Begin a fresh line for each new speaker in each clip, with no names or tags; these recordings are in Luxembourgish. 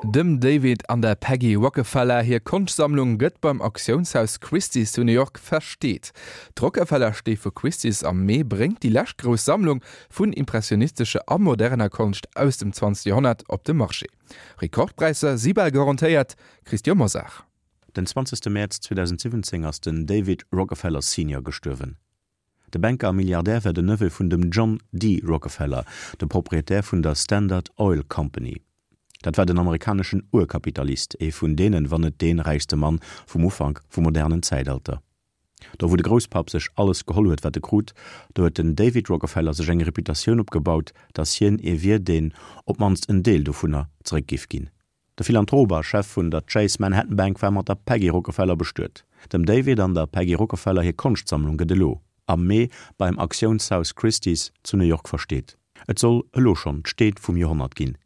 Dem David an der Peggy Rockefeller hir Konschtsammlung gëtt beim Auktiounshaus Christie's zu New York versteet. D'Rockefeller-Stee vu Christie's am Mee bréngt déi lescht grouss Sammlung vun impressionistescher a moderner Konscht aus dem 20. Joerhonnert op de Marché. Rekordpräisser si bal garantéiert, Christian Mosar.
Den 20 Mäerz 2017 ass den David Rockefeller Senior gestuerwen. De Banker a Milliardär war den Neveu vun dem John D. Rockefeller, dem Proprietär vun der Standard Oil Company. Dat war den amerikaneschen Urkapitalist, ee vun deenen, wann net dee räichste Mann vum Ufank vum modernen Zäitalter. Do wou de Grousspapp sech alles geholl huet wat e krut, do huet den David Rockefeller sech eng Reputatioun opgebaut, datt hien ee wier deen op d'mannst en Deel dovunner zeréck giff ginn. De Philanthrop a Chef vun der Chase Manhattan Bank war mat der Peggy Rockefeller bestuet. Dem David an der Peggy Rockefeller hir Konschtsammlung gëtt elo am Mee beim Auktiounshaus Christie's zu New York versteet. Et soll elo schonn d'Steet vum Joerhonnert ginn.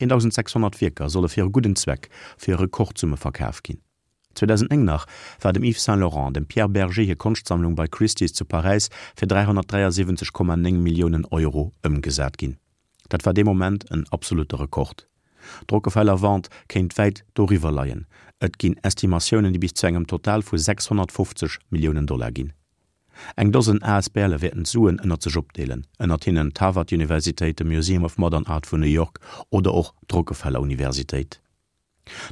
1.600 Wierker solle fir e gudden Zweck fir Rekordsumme verkaf ginn. 2009 nach war dem Yves Saint Laurent an dem Pierre Bergé hir Konschtsammlung bei Christie's zu Paräis fir 373,9 Milliounen Euro ëmgesat ginn. Dat war dee Moment en absolutte Rekord. D'Rockefeller Vente kéint wäit doriwwer leien, et ginn Estimatiounen, déi bis zu engem Total vu 650 Milliounen Dollar ginn. Eng Dosen ASBLe wäerten d'Suen ënnert sech opdeelen, ënnert hinnen d'Harvard-Universitéit, de Museum of Modern Art vun New York oder och d'Rockefeller Universitéit.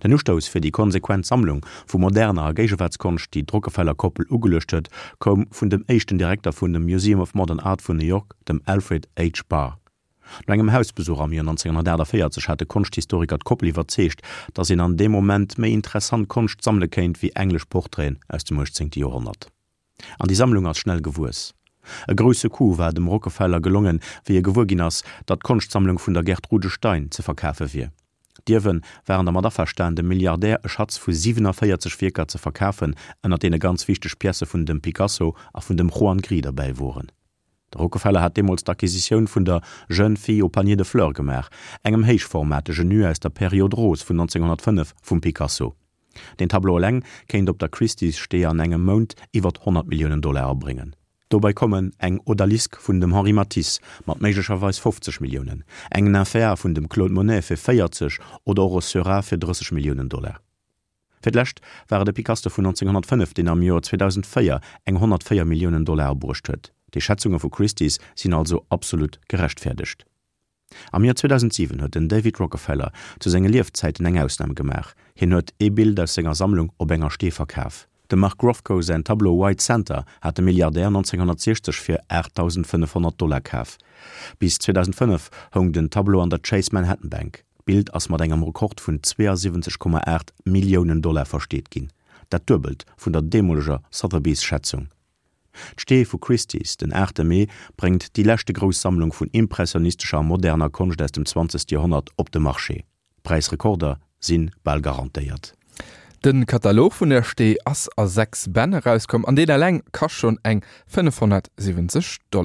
Den Ustouss fir déi konsequent Sammlung vu moderner a Géigewaartskonscht, déi d'Rockefeller-Koppel ugeluecht huet, koum vun dem éischten Direkter vun dem Museum of Modern Art vun New York, dem Alfred H. Barr. No engem Hausbesuch am Joer 1948 hat de Konschthistoriker d'Koppel iwwerzeegt, datt een an deem Moment méi interessant Konscht sammele kéint wéi englesch Portraiten aus dem 18. Joerhonnert. An déi Sammlung ass schnell gewuess. E grousse Coup war dem Rockefeller gelongen, wéi e gewuer ginn ass, datt d'Konschtsammlung vun der Gertrude Stein ze verkafe wier. D'Ierwe waren dermat averstan, dem Milliardär e Schatz vu 47 Wierker ze verkafen, ënner deene ganz wichteg Piècë vun dem Picasso a vun dem Juan Gris derbäi woren. De Rockefeller hat deemools d'Acquisitioun vun der Jeune fille au panier de fleurs gemaach, engem héichformatege Nu aus der Période rose vun 1905 vum Picasso. Deen Tableau eleng kéint op der Christie's Stee an engem Mount iwwert 100 Milliounen Dollar abréngen. Dobei kommen eng Odalisque vun dem Henri Matisse mat méiglecherweis 50 Milliounen, eng Nymphéa vun dem Claude Monet fir 40 oder och e Seurat fir 30 Milliounen Dollar. Fir d'lescht war et e Picasso vun 1905, deen am Joer 2004 eng 104 Milliounen Dollar abruecht huet. Déi Schätzunge vu Christie's sinn also absolut gerechtfäerdegt. Am Joer 2007 huet den David Rockefeller zu senge Liefzäiten eng Ausnam gemaach, hien huet ee Bild aus senger Sammlung op enger Stee verkaf. Dem Mark Rothko säin Tableau White Santa hat de Milliardär 1960 fir 8.500 Dollar kaf. Bis 2005 houng den Tableau an der Chase Manhattan Bank. D'Bild ass mat engem Rekord vun 72,8 Milliounen Dollar versteet ginn, dat Duebelt vun der deemoleger Sotheby's-Schätzung. D'Stee vu Christie's den 8 Mee bréngt déi leschte grouss Sammlung vun impressionistescher a moderner Konscht aus dem 20. Joerhonnert op de Marché. Präisrekorder si bal garantéiert.
De Katalog vun der Stee ass a 6 Bänn erauskomm an deen eleng kascht schonn eng 570 Dollar.